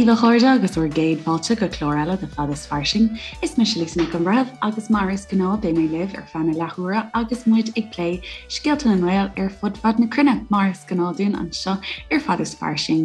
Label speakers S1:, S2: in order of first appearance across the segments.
S1: daoibh a chairde agus bhur gcéad fáilte go clár eile de Fad is Fairsing. Is mise Lisa Nic an Bhreithimh agus mar is gnáth beidh mé libh ar feadh na leathuaire agus muid ag plé scéalta na nGael ar fud fad na cruinne mar is gnáth dúinn anseo ar Fad is Fairsing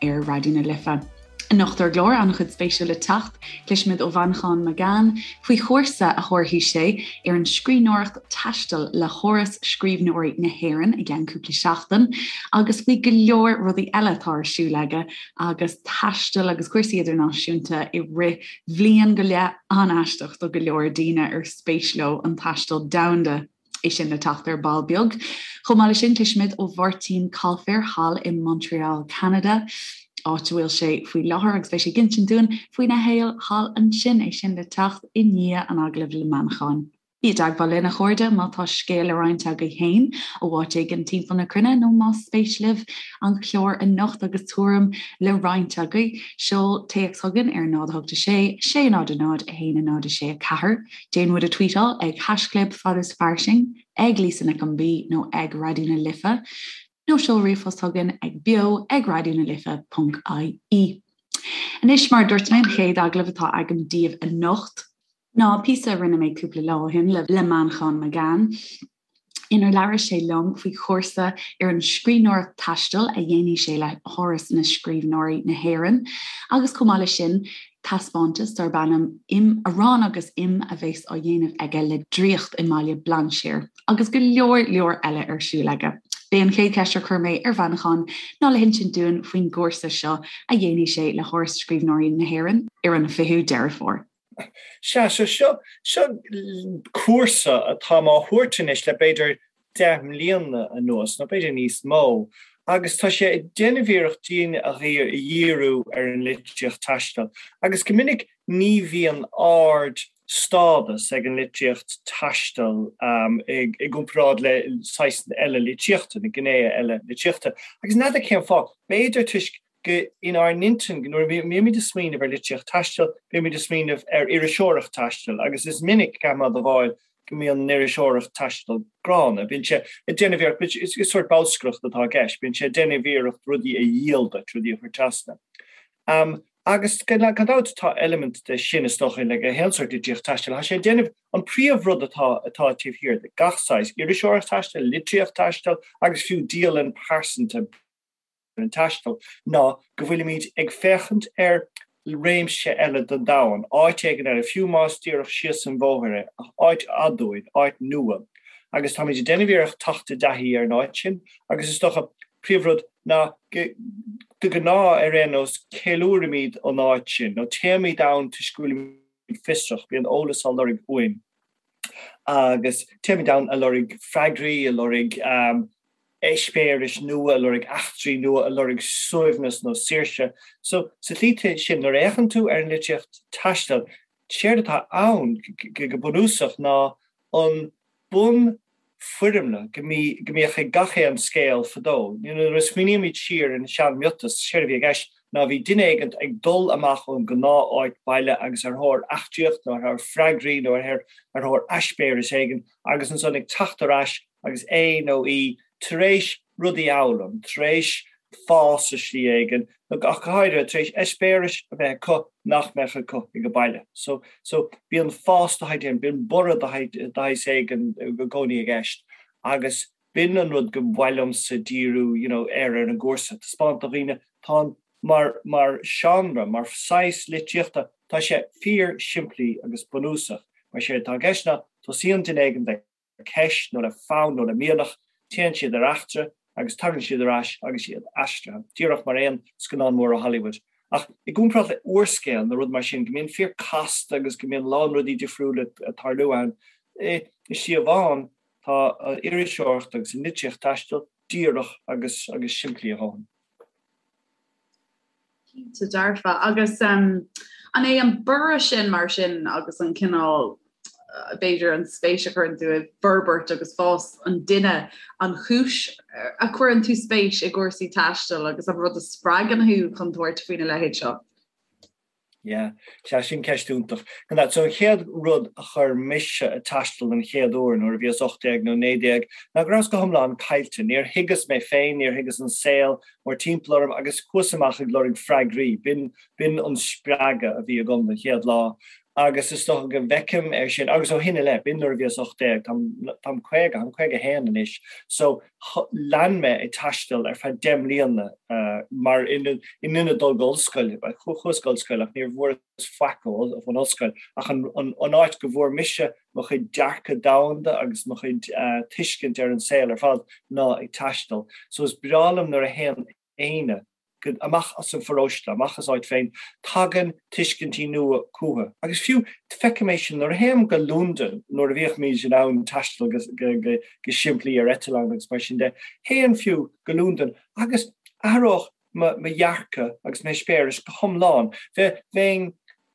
S1: ar Raidió na Life. Anocht ar an gclár, an-chuid spéisiúil le teacht, cloisfimid ó Mhanchán Magan faoi chúrsa a thabharfaidh sé ar an scríbhneoireacht taistil le hÁras Scríbhneoirí na hÉireann i gceann cúpla seachtain agus faoi go leor rudaí eile atá ar siúl aige agus taisteal agus cúrsaí idirnáisiúnta i rith bhliain go leith an-aisteach do go leor daoine ar spéis leo an taisteal domhanda. É sin le teacht ar ball beag. Chomh maith leis sin, cloisfimid ó Mháirtín Coilféir thall i Montreal, Ceanada, áit a bhfuil sé faoi láthair agus beidh sé ag insint dúinn faoina shaol thall ansin. É sin le teacht i ndiaidh an agallaimh le Manchán. Bí i dteagmháil linn, a chairde, má tá scéal le roinnt agaibh féin ó áit éigin timpeall na cruinne nó más spéis libh an clár anocht agus tuairim le roinnt agaibh, seol téacs chugainn ar 0 8 6 6 0 0 1 0 6 4. Déan muid a tweetáil ag haischlib fad is fairsing, ag Lisa Nic an B nó ag Raidió na Life, nó seol ríomhphost chugainn ag beo ag raidió na life ponc ie. Anois, mar a dúirt mé, an chéad agallamh atá agam daoibh anocht ná píosa a rinne mé cúpla lá ó shin le Manchán Magan, inar labhair sé liom faoi chúrsa ar an scríbhneoireacht taistil a dhéanfaidh sé le hÁras na Scríbhneoirí na hÉireann agus chomh maith leis sin taispeántas darb ainm Im, Arán agus Im a bheas á dhéanamh aige le Draíocht i mBaile Bhlainséir agus go leor leor eile ar siúl aige. B'é an chéad cheist ar chuir mé ar Mhanchán ná le hinsint dúinn faoin gcúrsa seo a dhéanfaidh sé le hÁras Scríbhneoirí na hÉireann ar an 20ú Deireadh Fómhair.
S2: Sea, so seo, seo cúrsa atáim á thabhairt anois le b'fhéidir 10 mbliana anuas, nó b'fhéidir níos mó, agus tá sé ag déanamh iarracht daoine a dhíriú ar an litríocht taistil. Agus go minic ní bhíonn ard-stádas ag an litríocht taistil i gcomparáid le saghas eile litríochta, na gnéithe eile litríochta. Agus n'fheadar cén fáth, b'fhéidir toisc go inár n-intinn, nuair a bhímid ag smaoineamh ar litríocht taistil, bímid ag smaoineamh ar iriseoireacht taistil agus is minic, caithfidh mé a admháil, go mbíonn an iriseoireacht taistil gránna. Bíonn sé ag déanamh iarracht, is sórt bolscaireacht atá i gceist, bíonn sé ag déanamh iarracht rudaí a dhíol duit, rudaí a chur trasna. Agus gan dabht tá eilimint de sin is dócha le gach aon sórt litríocht taistil. Tá sé ag déanamh, an príomhrud atá atá taobh thiar de gach saghas iriseoireacht taistil, litríocht taistil agus fiú dialann pearsanta, ar an taisteal ná go bhfuilimid ag féachaint ar réimse eile den domhan, áit éigin eile, fiú más díreach síos an bhóthar é, ach áit aduaidh, áit nua. Agus táimid ag déanamh iarracht teacht i dtaithí ar an áit sin agus is dócha, príomhrud ná go, de ghnáth ar aon nós, ceiliúraimid an áit sin, nó téimid ann toisc go bhfuilimid fiosrach, bíonn eolas á lorg uainn. Agus téimid ann a lorg freagraí, a lorg eispéiris nua, a lorg eachtraí nua, a lorg suaimhneas nó saoirse. So, sa tslí sin, nuair a fhéachann tú ar an litríocht taistil, séard atá ann go bunúsach ná an bunfhoirmle go mbíodh ag gach aon scéal fadó. Nuair a smaoinímid siar ar na sean-mhiotais, séard a bhí i gceist ná bhí duine éigint ag dul amach ón gnáth-áit baile agus ar thóir eachtraíocht nó ar thóir freagraí nó ar thóir eispéireas éigin agus ansan ag teacht ar ais agus é nó í tar éis rudaí a fhoghlaim, tar éis fás i slí éigin, nó ach go háirithe, tar éis eispéiris a bheith acu nach mbeadh acu ag baile. So, so, bíonn fás de shaghas éigin, bíonn borradh de shaghas éigin i gcónaí i gceist agus b'in an rud go mhaith liomsa díriú, you know, air ar an gcúrsa, taispeáint do dhaoine, tá an, mar, mar seánra, mar saghas litríochta, tá sé fíor simplí agus bunúsach. Mar séard atá i gceist ná, tosaíonn duine éigin le. ceist nó le fonn nó le mianach, téann siad ar eachtra agus tagann siad ar ais agus iad aistrithe, díreach mar aon scannán mór ó Hollywood. Ach i gcomparáid le úrscéal nó rud mar sin, go mbíonn fíor casta agus go mbíonn a lán rudaí difriúla ag tarlú ann, i slí amháin tá an iriseoireacht agus an litríocht taistil díreach agus agus simplí a dhóthain.
S3: Cinnte dearfa. Agus an é an borradh sin mar sin agus an cineál, b'fhéidir an spéis a chuireann tú i bhforbairt agus fás an duine, an chúis a chuireann tú spéis i gcúrsaí taistil agus an rud a spreagann thú chun tabhairt faoina leithéid seo?
S2: Yeah, sea, sin ceist iontach. Gan dabht, so an chéad rud a chuir mise ag taisteal den chéad uair nuair a bhíos 18 nó 19 ná go rabhas go hiomlán caillte. Níor thuigeas mé féin, níor thuigeas an saol mórthimpeall orm agus chuas amach ag lorg freagraí. B'in, b'in an spreagadh a bhí agam den chéad lá agus is dócha go bhfeicim é sin, agus ó shin i leith, b'in nuair a bhíos 18, táim, táim 50, táim 51 anois, so lean mé ag taisteal ar feadh 10 mbliana mar in ionad dul go ollscoil, chuas go ollscoil ach níor bhfuaireas faic ón ollscoil ach an áit go bhfuair mise mo chuid dearcadh domhanda agus mo chuid tuiscint ar an saol ar fad ná ag taisteal. So is breá liom nuair a théann éinne go, amach as an pharóiste, amach as áit féin, tagann tuiscintí nua chucu. Agus fiú, feicim é sin nuair a théim go Londain, nuair a bhíodh in ann taisteal go, go, go, go simplí ar eitleán agus mar sin de, théinn fiú go Londain agus athródh mo, mo dhearcadh agus m'eispéireas go hiomlán. Bhe, bheinn,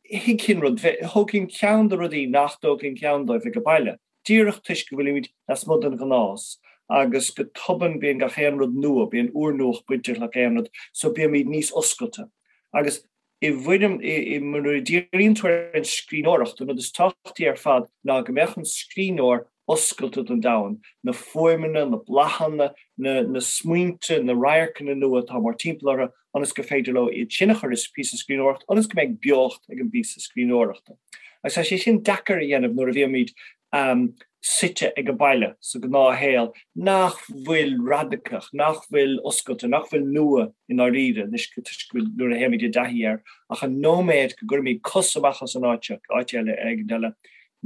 S2: thuigfinn rud, bhe, thógfainn ceann de rudaí nach dtógfainn ceann dóibh ag baile. díreach toisc go bhfuilimid lasmuigh den ghnás agus go tobann bíonn gach aon rud nua, bíonn úrnuacht bainteach le gach aon rud, so bímid níos oscailte. Agus i bhfoirm, i, nuair a díríonn tú ar an scríbhneoireacht, an rud is tábhachtaí ar fad ná go mbeadh an scríbhneoir oscailte don domhan, na fuaimeanna, na bláthanna, na, na smaointe, na radharcanna nua atá mórthimpeall orthu, ionas gur féidir leo iad sin a chur i píosa scríbhneoireachta, ionas go mbeidh beocht ag an bpíosa scríbhneoireachta. Agus tá sé sin deacair a dhéanamh nuair a bhímid suite ag an baile sa ghnáthshaol nach bhfuil radacach, nach bhfuil oscailte, nach bhfuil nua i ndáiríre, anois toisc go bhfuil nuair a théimid i dtaithí air, ach an nóiméad go gcuirimid cos amach as an áit seo, áit eile éigin eile,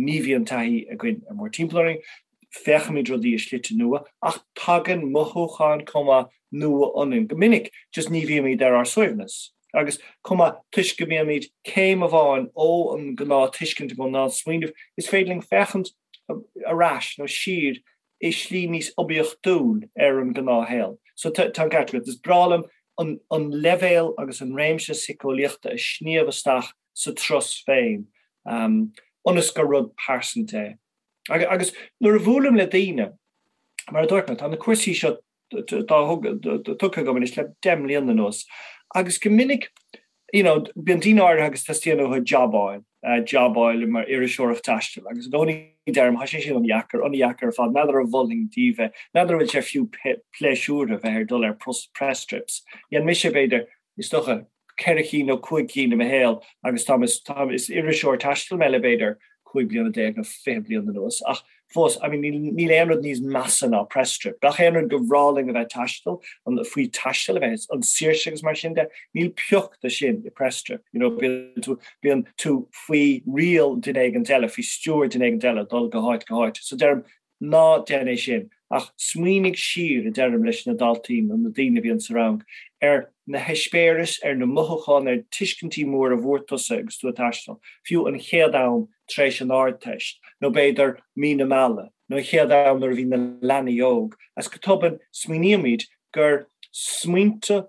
S2: ní bhíonn taithí againn ar mórthimpeall orainn. Féachaimid rudaí i slite nua, ach tagann mothúcháin chomh maith nua ionainn. Go minic, just ní bhímid ar ár suaimhneas. Agus chomh maith, toisc go mbímid céim amháin ó an gnáth-tuiscint nó gnáth-smaoineamh, is féidir linn féachaint ar ais nó siar i slí níos oibiachtúil ar an ngnáthshaol. So tá an ceart agat. Is breá liom an an leibhéal agus an réimse síceolaíochta a shníomh isteach sa turas féin, ionas gur rud pearsanta é. Agus nuair a bhuailim le daoine, mar a dúirt mé, tá na cúrsaí seo tugtha agam anois le 10 mbliana anuas, agus go minic, you know, bíonn daoine áirithe agus teastaíonn uathu jab a fháil, jab a fháil mar iriseoireacht taistil, agus i gcónaí deirim, tá sé sin an-dheacair, an-dheacair ar fad, n'fheadar an mholfainn daoibh é, n'fheadar an bhfuil sé fiú pléisiúrtha bheith ar dul ar press trips. Dhein mise, b'fhéidir, is dócha, 4 cinn nó 5 cinn i mo shaol agus táim, táim, is iriseoir taistil mé le b'fhéidir 15 bliana nó 20 bliain anuas ach fós, I mean, níl, níl aon rud níos measa ná press trip. Gach aon rud gur bhreá linn a bheith taisteal, an, faoi taisteal a bheith, an saoirse agus mar sin de, níl pioc de sin i press trip. You know, bíonn tú, bíonn tú faoi riail duine éigint eile, faoi stiúir duine éigint eile, dul go háit go háit. So deirim, Ná déan é sin, ach smaoinigh siar, a deirim leis na daltaí nó na daoine a bhíonn sa rang, ar na heispéiris, ar na mothúcháin, ar tuiscintí móra a bhfuair tusa agus tú ag taisteal, fiú an chéad am tar éis an Ardteist, nó b'fhéidir mí na meala, nó an chéad am nuair a bhí na leanaí óg, agus go tobann smaoinímid gur smaointe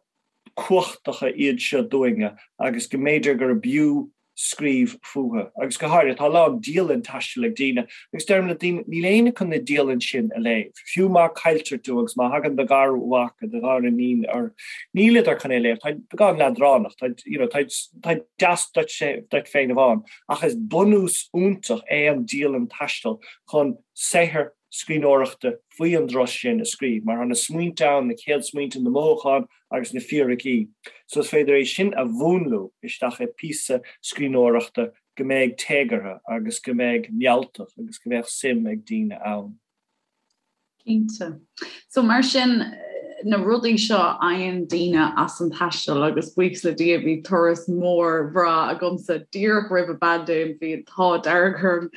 S2: cumhachtacha iad seo dúinne agus go mb'fhéidir gurb fhiú scríobh fúthu. Agus go háirithe, tá a lán dialann taistil ag daoine, agus deirim le daoine, níl éinne chun na dialann sin a léamh. Fiú má cailltear tú agus má thagann do gharmhac nó do ghariníon ort, nílidar chun é a léamh, táid beagán leadránach, táid, you know, táid, táid deas duit, duit féin amháin. Ach is bunús iontach é an dialann taistil chun saothar scríbhneoireachta faoi an dturas sin a scríobh, mar tá na smaointe ann, na chéad smaointe, na mothúcháin agus na fíricí. So is féidir é sin a mhúnlú isteach i píosa scríbhneoireachta go mbeidh téagartha agus go mbeidh mealltach agus go mbeadh suim ag daoine ann.
S3: Cinnte. So mar sin, na rudaí seo a fhaigheann daoine as an taisteal agus buíochas le Dia bhí turas mór bhreá agamsa díreach roimh an bpaindéim, bhí an t-ádh dearg orm.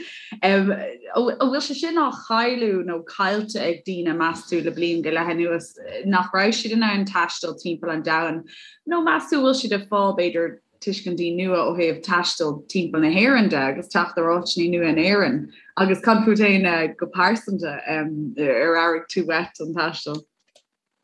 S3: An bhfuil sé sin á chailleadh nó caillte ag daoine meas tú le bliain go leith anuas nach raibh siad in ann taisteal timpeall an domhain nó meas tú bhfuil siad ag fáil b'fhéidir tuiscintí nua ó thaobh taisteal timpeall na hÉireann de agus teacht ar áiteanna nua in Éirinn agus cad fút féin go pearsanta ar airigh tú uait an taisteal?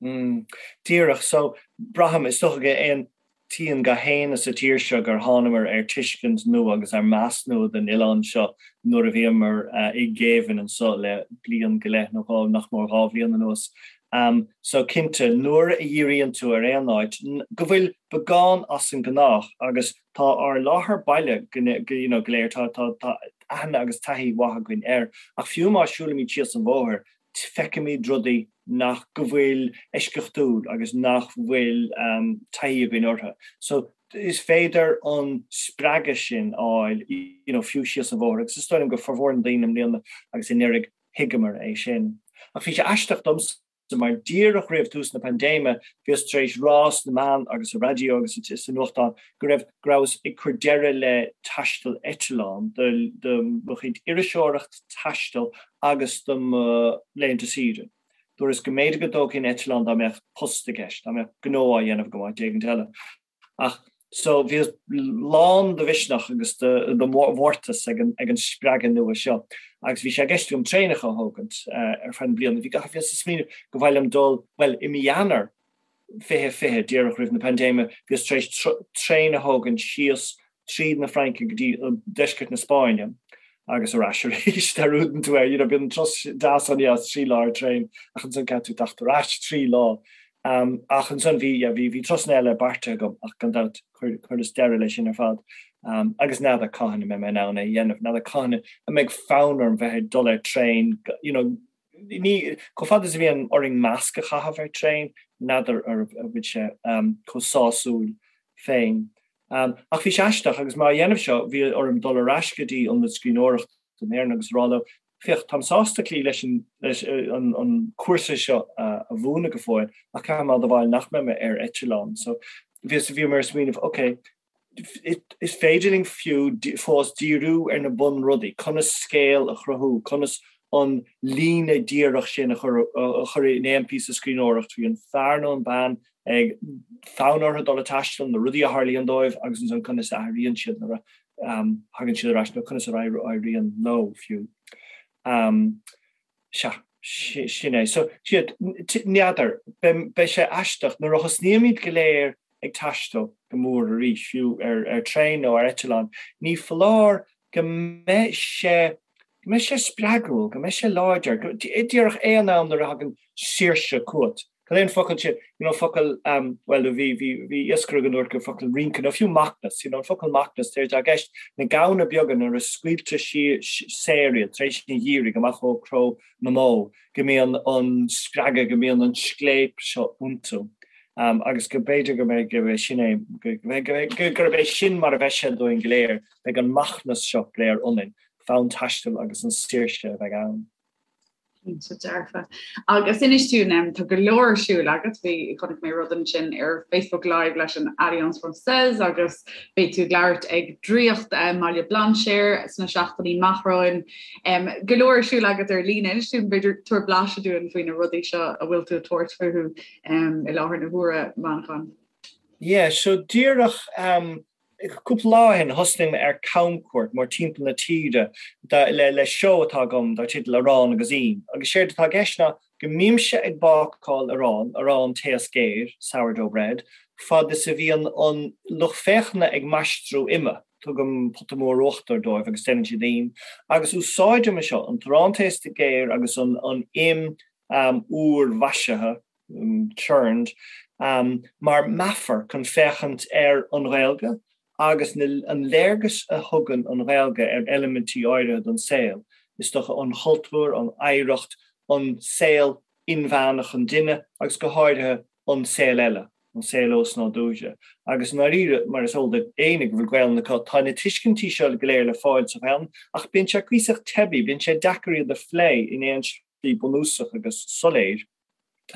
S2: Mm. Díreach. So, braithim, is dócha go n-aontaíonn gach éinne sa tír seo gur thánamar ar tuiscint nua agus ar meas nua den oileán seo nuair a bhíomar i ngéibheann anseo le bliain go leith nó dhá, nach mór 2 bhliain anuas. So cinnte, nuair a dhíríonn tú ar aon áit go bhfuil beagán as an ngnách agus tá ár láthair baile go you know go léir, tá tá tá aithne agus taithí mhaith againn air, ach fiú má siúlaimid síos an bhóthar, feicimid rudaí nach go bhfuil eisceachtúil agus nach bhfuil taithí againn orthu. So is féidir an spreagadh sin a fháil you know fiú síos an bhóthar agus is dóigh liom go formhór na daoine i mbliana agus anuraidh thuigeamar é sin. Ach bhí sé aisteach domsa mar díreach roimh tús na paindéime bhíos tar éis rá sna meáin agus sa raidió agus sa nuachtán go raibh go rabhas ag cur deireadh le taisteal eitleán do do mo chuid iriseoireacht taistil agus do mo laethanta saoire. Dúras go mb'fhéidir go dtógfainn eitleán dá mbeadh post i gceist, dá mbeadh gnó á dhéanamh agam áit éigint eile. Ach so bhíos lán de mhisneach agus de mhórtas ag an ag an spreagadh nua seo agus bhí sé i gceist agam traenacha a thógaint ar feadh na bliana. Bhí gach bhíos ag smaoineamh go mhaith liom dul, bhuel i mí Eanáir 2020, díreach roimh na paindéime, bhíos tar éis traein a thógaint síos tríd na Fraince go dtí deisceart na Spáinne agus ar ais arís. Dearúdann tú é, you know, bíonn an turas deas an-deas 3 lá ar traein ach ansan caithfidh tú teacht ar ais 3 lá. Ach ansan bhí, yeah, bhí, bhí turasanna eile beartaithe agam ach gan dabht chuireas deireadh leis sin ar fad. Agus n'fheadar cathain a mbeidh mé in ann é a dhéanamh, n'fheadar cathain a mbeidh fonn orm bheith ag dul ar traein, you know, ní, chomh fada is a bhíonn orainn masc a chaitheamh ar traein, n'fheadar an bhfuil sé chomh sásúil féin. Ach bhí sé aisteach agus mé á dhéanamh seo, bhí orm dul ar ais go dtí Ionad Scríbhneoireachta na hÉireann agus a rá leo, féach, táim sásta cloí leis an an cúrsa seo a mhúineadh go fóill ach caithfidh mé a admháil nach mbeidh mé ar eitleán. So bhíos, bhíomar ag smaoineamh, ok, is féidir linn fiú fós díriú ar na bunrudaí, conas scéal a chruthú, conas an líne díreach sin a chur a chur in aon píosa scríbhneoireachta faoi an fear nó an bean ag fonn orthu dul ag taisteal, na rudaí a tharlaíonn dóibh agus ansan conas a athraíonn siad nuair a thagann siad ar ais nó conas a éiríonn leo fiú. Sea, sin é. So, siad, n'fheadar, beidh sé aisteach nuair a thosnaímid go léir ag taisteal go mór arís, fiú ar traein nó ar eitleán, ní foláir go mbeidh sé, go mbeidh sé spreagúil, go mbeidh sé láidir, go, díreach aon am nuair a thagann saoirse chugat. Cad é an focal sin, you know, focal, um, bhuel, bhí, bhí, bhí iascaire againn a dúirt gur focal rince, nó fiú macnas, you know, an focal macnas, tá i gceist na gamhna beaga nuair a scaoiltear saor iad tar éis an gheimhridh amach ó chró na mbó, go mbíonn an spreagadh, go mbíonn an scléip seo iontu. Um, agus go b'fhéidir go mbeidh, go mbeidh sin é, go, go, go, gurb é sin mar a bheidh sé dúinn go léir, Beidh an macnas seo go léir ionainn, fonn taistil agus an saoirse a bheidh ann.
S3: Cinnte dearfa. Agus inis dúinn, tá go leor ar siúl agat, bhí, chonaic mé rud ansin ar Facebook Live leis an Alliance Française agus beidh tú ag labhairt ag Draíocht i mBaile Bhlainséir sna seachtainí amach romhainn. Go leor ar siúl agat ar líne. Inis dúinn, b'fhéidir, tabhair blaiseadh dúinn faoi na rudaí seo a bhfuil tú ag tabhairt fúthu i láthair na huaire, Manchán.
S2: Yeah, so díreach Cúpla lá ó shin thosnaigh mé ar camchuairt mórtimpeall na tíre le seó atá agam dar teideal Arán agus Im. Agus séard atá i gceist ná go mbímse ag bácáil arán, arán taos géar, sourdough bread, fad is a bhíonn an lucht féachana ag maistriú ime. Tugaim pota mór uachtair dóibh agus déanann siad im. Agus úsáidim é seo, an t-arán taosta géar agus an im úr mhaisithe, churned, mar meafar chun féachaint ar an Ghaeilge agus an léargas a thugann an Ghaeilge ar eilimintí áirithe den saol, is dócha an chultúr, an oidhreacht, an saol inmheánach an duine agus go háirithe an saol eile, an saol osnádúrtha. Agus i ndáiríre, mar is eol d'éinne go bhfuil Gaelainn acu, tá na tuiscintí seo go léir le fáil sa Ghaelainn ach bíonn sé cuíosach teibí, bíonn sé deacair iad a phlé in aon slí bunúsach agus soiléir.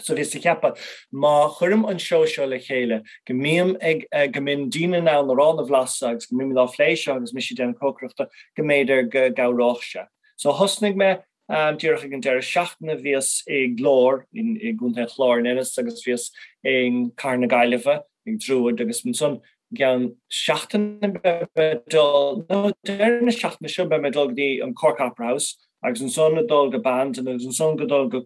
S2: So bhíos ag ceapadh, má chuirim an seó seo le chéile, go mbím ag, go mbíonn daoine in ann arán a bhlaiseadh agus go mbímid á phlé seo agus mise ag déanamh cócaireachta, go mb'fhéidir go gcabhródh sé. So thosnaigh mé díreach ag an deireadh seachtaine, bhíos i nGlór i gContae an Chláir in Ennis agus bhíos i gCathair na Gaillimhe ag Druid agus ansan i gceann seachtaine beidh mé ag dul, nó deireadh na seachtaine seo beidh mé ag dul go dtí an Cork Opera House agus ansan ag dul go Bandon agus ansan go dul go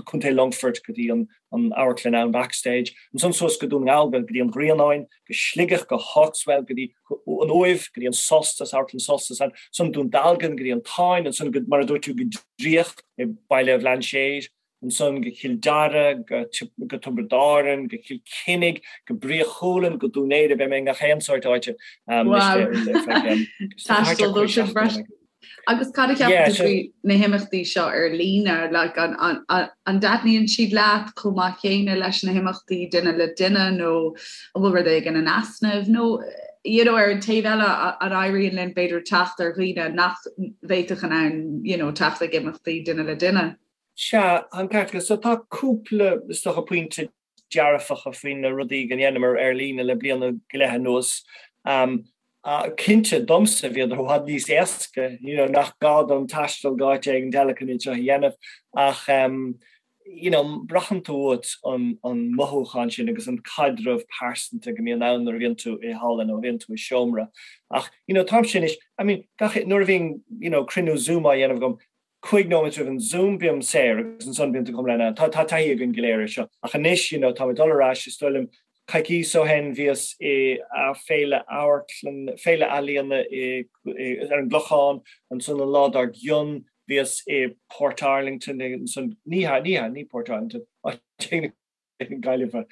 S2: Contae Longfoirt go dtí an amharclann ann Backstage, ansan suas go Dún na nGall go dtí an Ghrianáin, go Sligeach, go Hawkswell, go dtí an Uaimh, go dtí an Solstice, amharclann Solstice ansan Dún Dealgan, go dtí an Táin, ansan go, mar a dúirt tú, go Draíocht i Baile Bhlainséir. Ansan go Cill Dara, go Tiobraid Árann, go Cill Chainnigh, go Brí Chualann, go Dún Laoghaire, beidh mé i ngach aon sórt áite.
S3: Wow! Taisteal dó sin freisin. Agus cad a cheapann tú faoi na himeachtaí seo ar líne? Like, an, an, an, an dtaitníonn siad leat chomh maith céanna leis na himeachtaí duine le duine nó an bhfuil rud éigin in easnamh nó you know, ar an taobh eile an éiríonn linn b'fhéidir teacht ar dhaoine nach bhféadfadh in ann you know, teacht ag imeachtaí duine le duine?
S2: Sea, an ceart agat. So tá cúpla, is dócha, pointe dearfacha faoi na rudaí go ndéanamar ar líne le bliain go leith anuas. Cinnte, domsa, bhíodar i bhfad níos éasca, you know, nach gá dom taisteal go áit éigin eile chun iad seo a dhéanamh ach you know, braitheann tú uait an an mothúchán sin agus an caidreamh pearsanta go mbíonn ann nuair a bhíonn tú i halla nó a bhíonn tú i seomra. Ach, you know, táimse anois, I mean, gach, nuair a bhíonn, you know, cruinniú Zoom á dhéanamh agam, 5 nóiméad roimh an Zoom bím saor agus ansan bíonn tú go hiomlán ann. Tá tá taithí againn go léir air seo. Ach anois, you know, tá mé ag dul ar ais, is dóigh liom, coicíos ó shin bhíos i féile amharclann, féile ealaíona i ar an gClochán, ansan an lá dár gcionn bhíos i Portarlington, ansan, ní hea, ní hea, ní Portarlington, áit éigin Gaillimhe.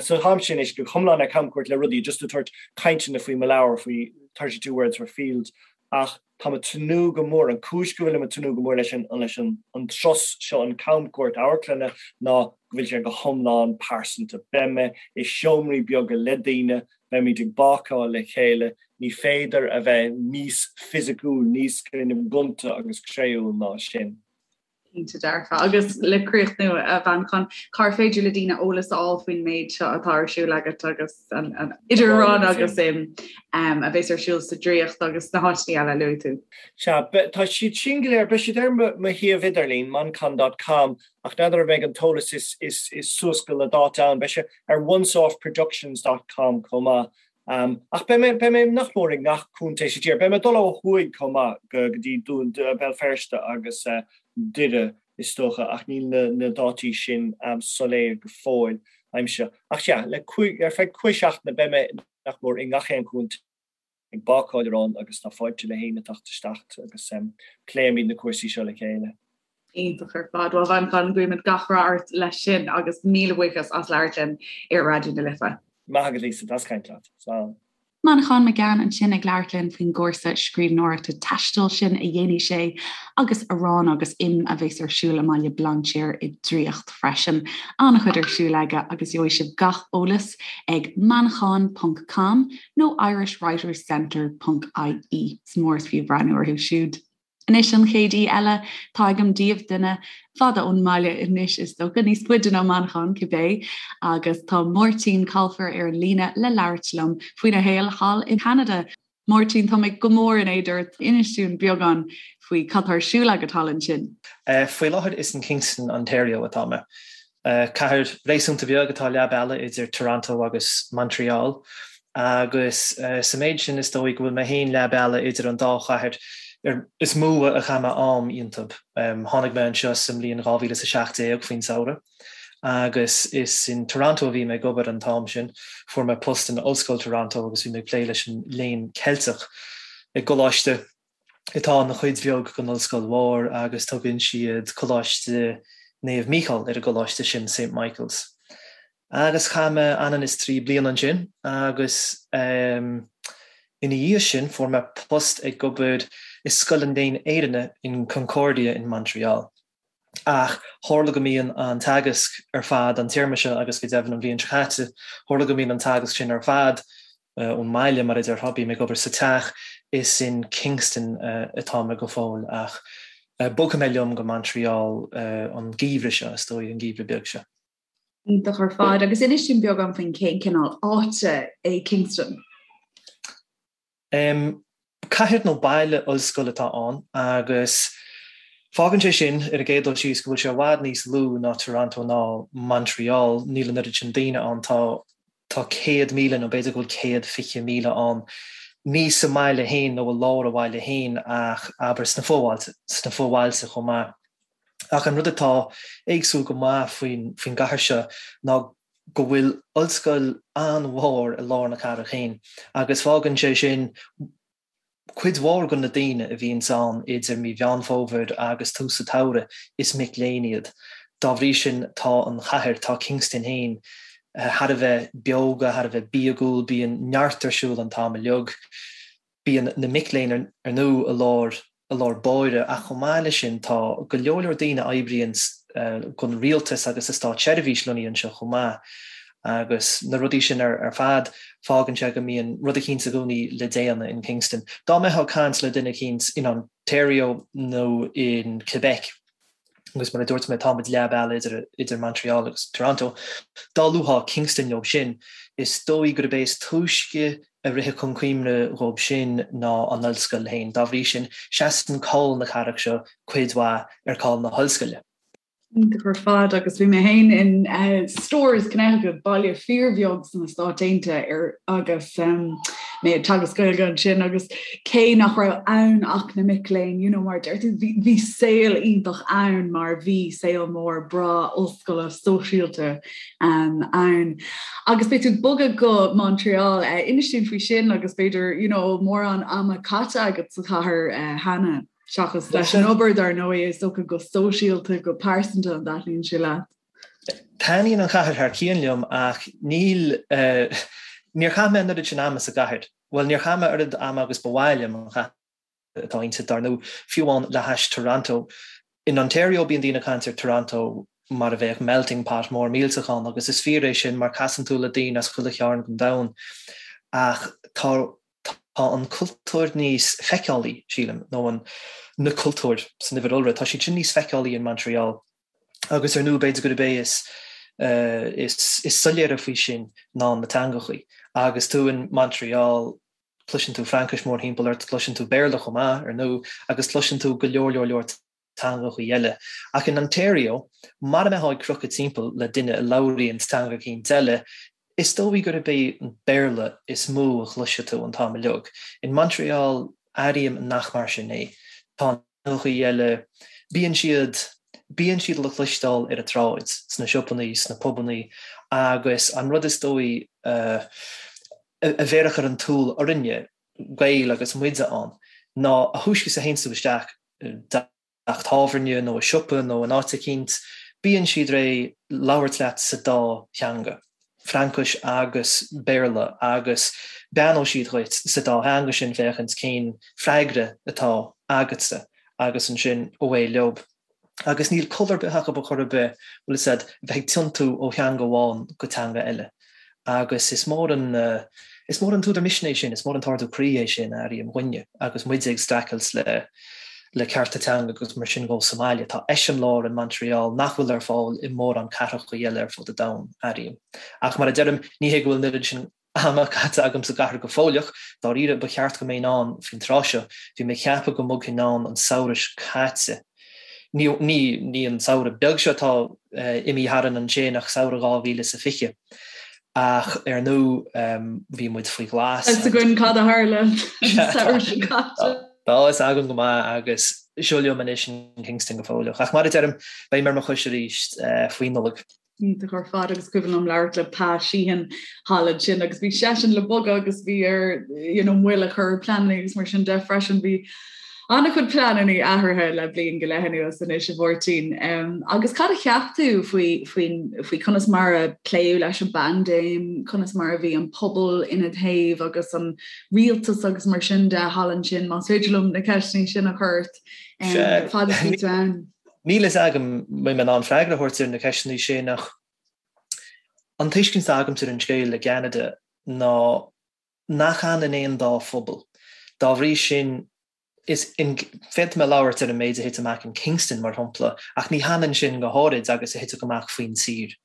S2: So táimse anois go hiomlán ar camchuairt le rudaí, just ag tabhairt cainteanna faoi mo leabhar, faoi 32 Words for Field, ach táim ag tnúth go mór, an cúis go bhfuilim ag tnúth go mór leis an leis an an turas seo, an camchuairt amharclainne, ná go bhfuil sé go hiomlán pearsanta. Beidh mé i seomraí beaga le daoine, beimid ag bácáil le chéile, ní féidir a bheith níos fisiciúil, níos kind of gonta agus créúil ná sin.
S3: Cinnte dearfa. Agus le críochnú, a Mhanchain, cár féidir le daoine eolas a fháil faoin méid seo atá ar siúl agat agus an idir arán agus im a bheas ar siúl sa Draíocht agus sna háiteanna eile a luaigh tú?
S2: Sea, tá siad sin go léir, beidh siad ar mo shuíomh idirlín, manchán dot com, ach n'fheadar an mbeidh an t-eolas is suas go le dáta ann. Beidh sé ar onceoffproductions dot com chomh maith. Ach beidh mé, beidh mé nach mór i ngach contae sa tír. Beidh mé ag dul ó thuaidh chomh maith go dtí Dún, Béal Feirste agus Doire is dócha ach níl na, na dátaí sin soiléir go fóill agamsa. Ach sea, le cúig, ar feadh cúig seachtaine beidh mé nach mór i ngach aon chontae ag bácáil arán agus tá fáilte le héinne teacht isteach agus pléimid na cúrsaí seo le chéile.
S3: Iontach ar fad. Bhuel, a Mhanchain, guímid gach rath ort leis sin agus míle buíochas as labhairt linn ar Raidió na Life.
S2: Maith agat Lisa, deas caint leat. Slán.
S1: Manchán Magan ansin ag labhairt linn faoin gcúrsa scríbhneoireachta taistil sin a dhéanfaidh sé agus arán agus im a bheas ar siúl i mBaile Bhlainséir i nDraíocht freisin. An-chuid ar siúl aige agus gheobhaidh sibh gach eolas ag manchán ponc com nó irishwriterscentre ponc ie. Is mór is fiú breathnú orthu siúd. Anois an chéad aoi eile atá agam daoibh, duine fada ón mbaile anois is dócha, níos faide ná Manchán cibé, agus tá Máirtín Colfer ar an líne le labhairt liom faoina shaol thall i gCeanada. Máirtín, tá mé go mór in éad ort, inis dúinn beagán faoi cad tá ar siúl agat thall ansin.
S4: Faoi láthair is in Kingston, Ontario atá mé. Cathair réasúnta beag atá leath bealaigh idir Toronto agus Montreal agus sa méid sin is dóigh go bhfuil mé féin leath bealaigh idir an dá chathair is mó a chaith mé am iontu. Tháinig mé anseo sa mbliain 2017 faoin samhradh agus is in Toronto a bhí mé ag obair an t-am sin. Fuair mé post in Ollscoil Toronto agus bhí mé ag plé leis an léann Ceilteach i gcoláiste atá ina chuid bheag den ollscoil mhór agus tugann siad Coláiste Naomh Mícheál ar an gcoláiste sin, Saint Michael's. Agus chaith mé anonn is 3 bliana ansin agus ina dhiaidh sin fuair mé post ag obair i Scoil an Léinn Éireannaigh in Concordia in Montreal. Ach tharla go mbíonn an teagasc ar fad an téarma seo agus go deimhin an bhliain seo caite, tharla go mbíonn an teagasc sin ar fad ón mbaile, mar a déarfá, bím ag obair sa teach, is in Kingston atá mé go fóill ach bogfaidh mé liom go Montreal an geimhreadh seo, is dóigh, an geimhreadh beag seo.
S3: Iontach ar fad. Agus inis dúinn beagán faoin cén cineál áite é Kingston?
S4: Cathair nó baile ollscoile atá ann agus fágann sé sin, ar an gcéad dul síos, go bhfuil sé i bhfad níos lú ná Toronto ná Montreal. Níl an oiread sin daoine ann, tá tá 100,000 nó b'fhéidir go bhfuil 120,000 ann, ní sa mbaile féin nó i lár an bhaile féin ach abair sna fobhailte, sna fobhailte chomh maith. Ach an rud atá éagsúil go maith faoin faoin gcathair seo ná go bhfuil ollscoil an-mhór i lár na cathrach féin agus fágann sé sin cuid mhór de na daoine a bhíonns ann idir mí Mheán Fómhair agus tús an tsamhraidh, is mic léinn iad. Dá bhrí sin, tá an chathair, tá Kingston féin, thar a bheith beoga, thar a bheith bíogúil, bíonn neart ar siúl an t-am uilig. Bíonn na mic léinn ar ndóigh i lár, i lár báire ach chomh maith leis sin tá go leor leor daoine a oibríonn don rialtas agus sa státseirbhís lonnaithe anseo chomh maith agus na rudaí sin ar fad fágann sé go mbíonn rud eicínt i gcónaí le déanamh in Kingston. Dá mbeifeá ag caint le duine eicínt in Ontario nó in Quebec, agus mar a dúirt mé tá muid leath bealaigh idir idir Montreal agus Toronto. Dá luafá Kingston leo sin, is dóigh gurb é is túisce a rithfeadh chun cuimhne dhóibh sin ná an ollscoil féin. Dá bhrí sin, seasann cáil na cathrach seo cuid mhaith ar cáil na hollscoile.
S1: Iontach ar fad agus bhí mé féin in Storrs, Connecticut, baile fíorbheag sna Stáit Aontaithe ar agus mé ag teagasc Gaeilge ansin agus cé nach raibh ann ach na mic léinn, you know, mar a deir tú, bhí, bhí saol iontach ann mar bhí saol mór breá ollscoile sóisialta um, ann. Agus beidh tú ag bogadh go Montreal, uh, inis dúinn faoi sin agus b'fhéidir, you know, mórán ama caite agat sa chathair uh, cheana, seachas leis an obair dar ndóigh, is dócha go sóisialta, go pearsanta an dtaitníonn sé leat.
S4: Taitníonn an chathair thar cionn liom ach níl, níor chaith mé an oiread sin ama sa gcathair. Bhuel, níor chaith mé oiread ama agus ba mhaith liom an chathair atá inti, dar ndóigh, fiú amháin le hais Toronto. In Ontario bíonn daoine ag caint ar Toronto mar a bheadh melting pot mór millteach ann agus is fíor é sin mar casann tú le daoine as chuile chearn den domhan ach tá tá an cultúr níos feiceálaí, sílim, nó an, na cultúir san uimhir iolra, tá siad sin níos feiceálaí in Montreal. Agus ar ndóigh b'fhéidir gurb é is is soiléire faoi sin ná na teangachaí. Agus tú in Montreal cloiseann tú Fraincis mórthimpeall ort, cloiseann tú Béarla chomh maith, ar ndóigh, agus cloiseann tú go leor leor leor teangachaí eile. Ach in Ontario, mara mbeifeá ag crochadh timpeall le duine a labhraíonn teanga eicínt eile, is dóigh gurb é an Béarla is mó a chloisfidh tú an t-am uilig. In Montreal, airím nach mar sin é. Tá teangachaí eile, bíonn siad, bíonn siad le cloisteáil ar an tsráid, sna siopannaí, sna pubannaí agus an rud is dóigh a bhéarfadh ar an tsúil orainne, Gaeil agus muide ann, ná a thúisce is a théanns tú isteach i dteach tábhairne nó i siopa nó in áit eicínt, bíonn siad réidh labhairt leat sa dá theanga, Fraincis agus Béarla, agus beannóidh siad dhuit sa dá theanga sin féachaint cén freagra atá agatsa agus ansin away leob. Agus níl col ar bith acu ar chor ar bith, bhfuil fhios a'd, bheith ag tiontú ó theanga amháin go teanga eile. Agus is mór an, is mór an t-údar misnigh é sin, is mór an t-ardú croí é sin, airím, dhúinne, agus muide ag streachailt le, le cearta teanga agus mar sin dhó sa mbaile. Tá eiseamláir in Montreal nach bhfuil ar fáil i mórán cathracha eile ar fud an domhain, airím. Ach mar a deirim, ní hé go bhfuil an oiread sin ama caite agam sa gcathair go fóilleach, dáiríre, ba cheart go mbeinn ann faoin tráth seo. Bhí mé ag ceapadh go mbogfainn ann an samhradh seo caite. Ní, ní, ní an samhradh beag seo atá imithe tharainn ansin ach samhradh 2020. Ach ar ndóigh, bhí muid faoi ghlas.
S1: Tá fhios againn cad a tharla an samhradh seo caite.
S4: Tá fhios agam go maith agus seo liom anois in Kingston go fóilleach. Ach mar a deirim, beidh mé ar mo chois arís faoi Nollaig.
S1: Iontach ar fad agus cuimhin liom labhairt le Pa Sheehan thall ansin agus bhí seisean le bogadh agus bhí air you know, moill a chur ar pleananna agus mar sin de freisin bhí an-chuid pleananna athraithe le bliain go leith anuas anois a Mháirtín. Um, agus cad a cheap tú faoi, faoi, faoi conas mar a pléadh leis an bpaindéim, conas mar a bhí an pobal ina thaobh agus an rialtas agus mar sin de thall ansin, más féidir liom na ceisteanna sin a chur ort um, fad is bhí tú ann.
S4: Níl fhios agam an mbeidh mé in ann freagra a thabhairt ar na ceisteanna sin ach an tuiscint atá agamsa ar an scéal i gCeanada ná nach ionann aon dá phobal. Dá bhrí sin, is féadfaidh mé labhairt ar an méid a thit amach in Kingston, mar shampla, ach ní hionann sin go háirid agus a thitfeadh amach faoin tír.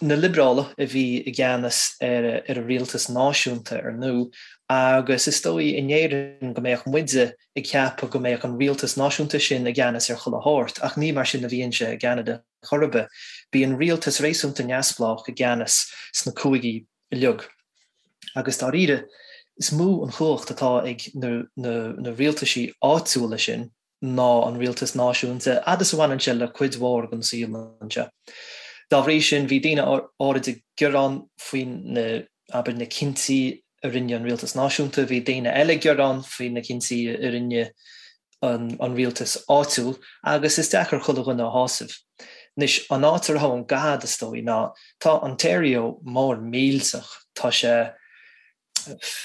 S4: Na Liobrálaigh a bhí i gceannas ar an rialtas náisiúnta, ar ndóigh, agus is dóigh in Éirinn go mbeadh muide ag ceapadh go mbeadh an rialtas náisiúnta sin i gceannas ar chuile shórt, ach ní mar sin a bhíonn sé i gCeanada chor ar bith. Bíonn rialtas réasúnta neamhspleách i gceannas sna cúigí uilig. Agus dáiríre, is mó an chumhacht atá ag na rialtaisí áitiúla sin ná an rialtas náisiúnta, fhad is a bhaineann sé le cuid mhór den saol anseo. Dá bhrí sin, bhí daoine áirid ag gearán faoi na, abair, na cinntí a rinne an rialtas náisiúnta, bhí daoine eile ag gearán faoi na cinntí a rinne. an rialtas áitiúil agus is deacair chuile dhuine a shásamh. Anois, an áit a raibh an gad, is dóigh, ná tá Ontario mór millteach, tá sé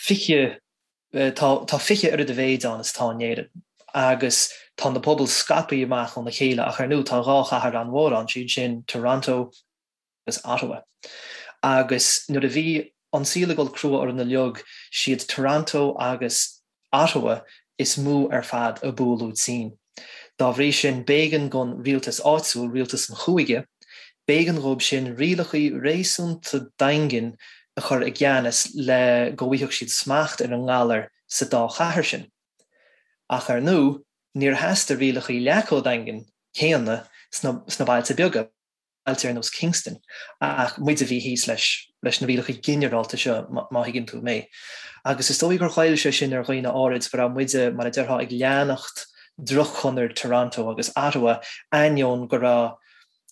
S4: 20, tá 20 oiread a mhéid ann is atá in Éirinn agus tá na pobail scaipthe amach óna chéile ach ar ndóigh tá dhá chathair an-mhór ann, siad sin Toronto agus Ottawa. Agus nuair a bhí an saol ag dul crua orainn uilig, siad Toronto agus Ottawa is mó ar fad a buaileadh tinn. Dá bhrí sin, b'éigean don rialtas áitiúil, rialtas an chúige, b'éigean dhóibh sin rialachaí réasúnta daingean a chur i gceannas le go bhfaigheadh siad smacht ar an ngalar sa dá chathair sin. Ach ar ndóigh, níor theastaigh rialachaí leath chomh daingean céanna sna bailte beaga. bailte ar nós Kingston, ach muid a bhí thíos leis, leis na rialacha ginearálta seo, má thuigeann tú mé. Agus is dóigh gur ghoill sé sin ar dhaoine áirid, go raibh muide, mar a déarfá, ag leanacht droch-chonair Toronto agus Ottawa, ainneoin go raibh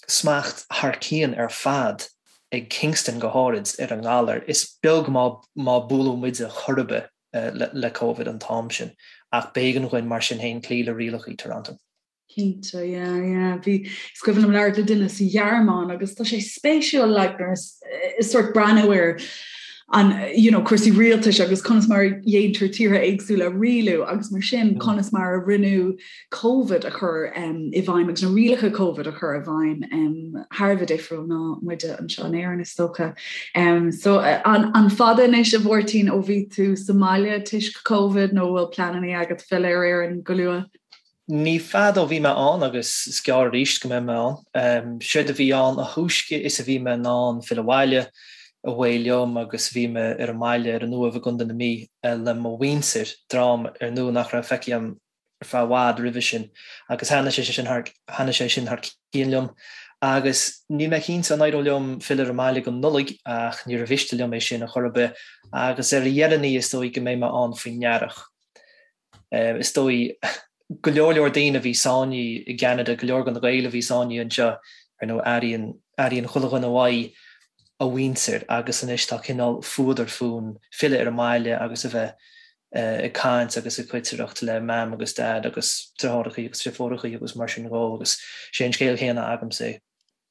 S4: smacht thar cionn ar fad ag Kingston go háirid ar an ngalar. Is beag má má buaileadh muide chor ar bith le Covid an t-am sin, ach b'éigean dhuinn mar sin féin cloí le rialacha Toronto.
S3: Cinnte, yeah, yeah. Bhí, is cuimhin liom labhairt le duine sa Ghearmáin agus tá sé spéisiúil like nuair is sort breathnú ar an you know, cúrsaí rialtais agus conas mar a dhéantar tíortha éagsúla a rialú agus mar sin mm. conas mar a rinneadh COVID a chur um, i bhfeidhm agus na rialacha COVID a chur i bhfeidhm um, thar a bheith difriúil ná muide anseo in Éirinn is dócha. Um, so an, an fada anois a Mháirtín ó bhí tú sa mbaile toisc COVID nó bhfuil pleananna agat filleadh ar Éirinn go luath?
S4: Ní fada ó bhí mé ann agus is gearr arís go mbeidh mé ann. Séard a bhí ann, a thúisce is a bhí mé in ann filleadh abhaile, away liom agus bhí mé ar an mbaile ar an Uaimh i gContae na Mí le mo mhuintir, dream ar ndóigh nach raibh feicthe agam ar feadh i bhfad roimhe sin agus thaitnigh sé sin thar, thaitnigh sé sin thar cionn liom. Agus níl mé cinnte an éireoidh liom filleadh ar an mbaile go Nollaig ach níor mhiste liom é sin a chor ar bith agus ar a dheireanaí is dóigh go mbeidh mé ann faoin earrach. Is dóigh, go leor leor daoine a bhí sáinnithe i gCeanada, go leor de na Gaeil a bhí sáinnithe anseo, ar ndóigh, airíonn, airíonn chuile dhuine uaidh a mhuintir agus anois tá cineál fuadar fúinn filleadh ar an mbaile agus a bheith ag caint agus ag coitireacht le Mam agus Dad agus deartháireachaí agus deirfiúrachaí agus mar sin dhó agus sé an scéal céanna agamsa é.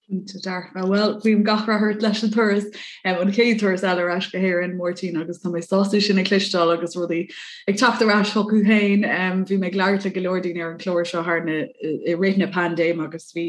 S3: Cinnte dearfa. Bhuel, guím gach rath ort leis an turas, an chéad turas eile ar ais go hÉirinn, Máirtín, agus tá mé sásta sin a chloisteáil agus rudaí ag teacht ar ais chucu féin. Bhí mé ag labhairt le go leor daoine ar an chlár seo thar na, i rith na paindéime agus bhí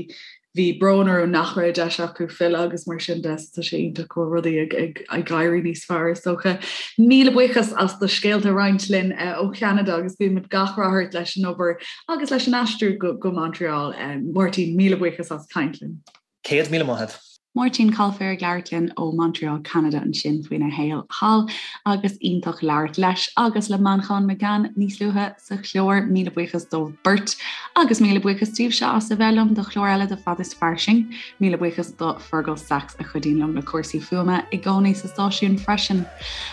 S3: bhí brón orthu nach raibh deis acu filleadh agus mar sin de, so tá sé iontach go bhfuil rudaí ag ag ag éirí níos fearr is dócha. Míle buíochas as do scéalta a roinnt linn ó Cheanada agus guímid gach rath ort leis an obair Agus leis an aistriú go Montreal, Máirtín, míle buíochas as caint linn.
S4: 100,000 maith agat.
S1: Máirtín Coilféir ag labhairt linn ó Montreal, Ceanada ansin faoina shaol thall agus iontach labhairt leis agus le Manchán Magan níos luaithe sa chlár. Míle buíochas dóibh beirt agus míle buíochas daoibhse as a bheith liom do chlár eile de Fad is Fairsing. Míle buíochas do Fergal Sachs a chuidíonn liom le cúrsaí fuaime i gcónaí sa stáisiún freisin.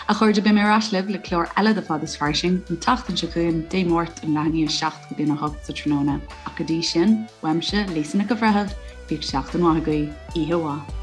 S1: A chairde, beidh mé ar ais libh le clár eile de Fad is Fairsing an tseachtain seo chugainn, Dé Máirt, ón leath i ndiaidh a 7 go dtí a 8 sa tráthnóna. Ach go dtí sin, uaimse, Lisa Nic an Bhreithimh, bíodh seachtain mhaith agaibh, oíche mhaith.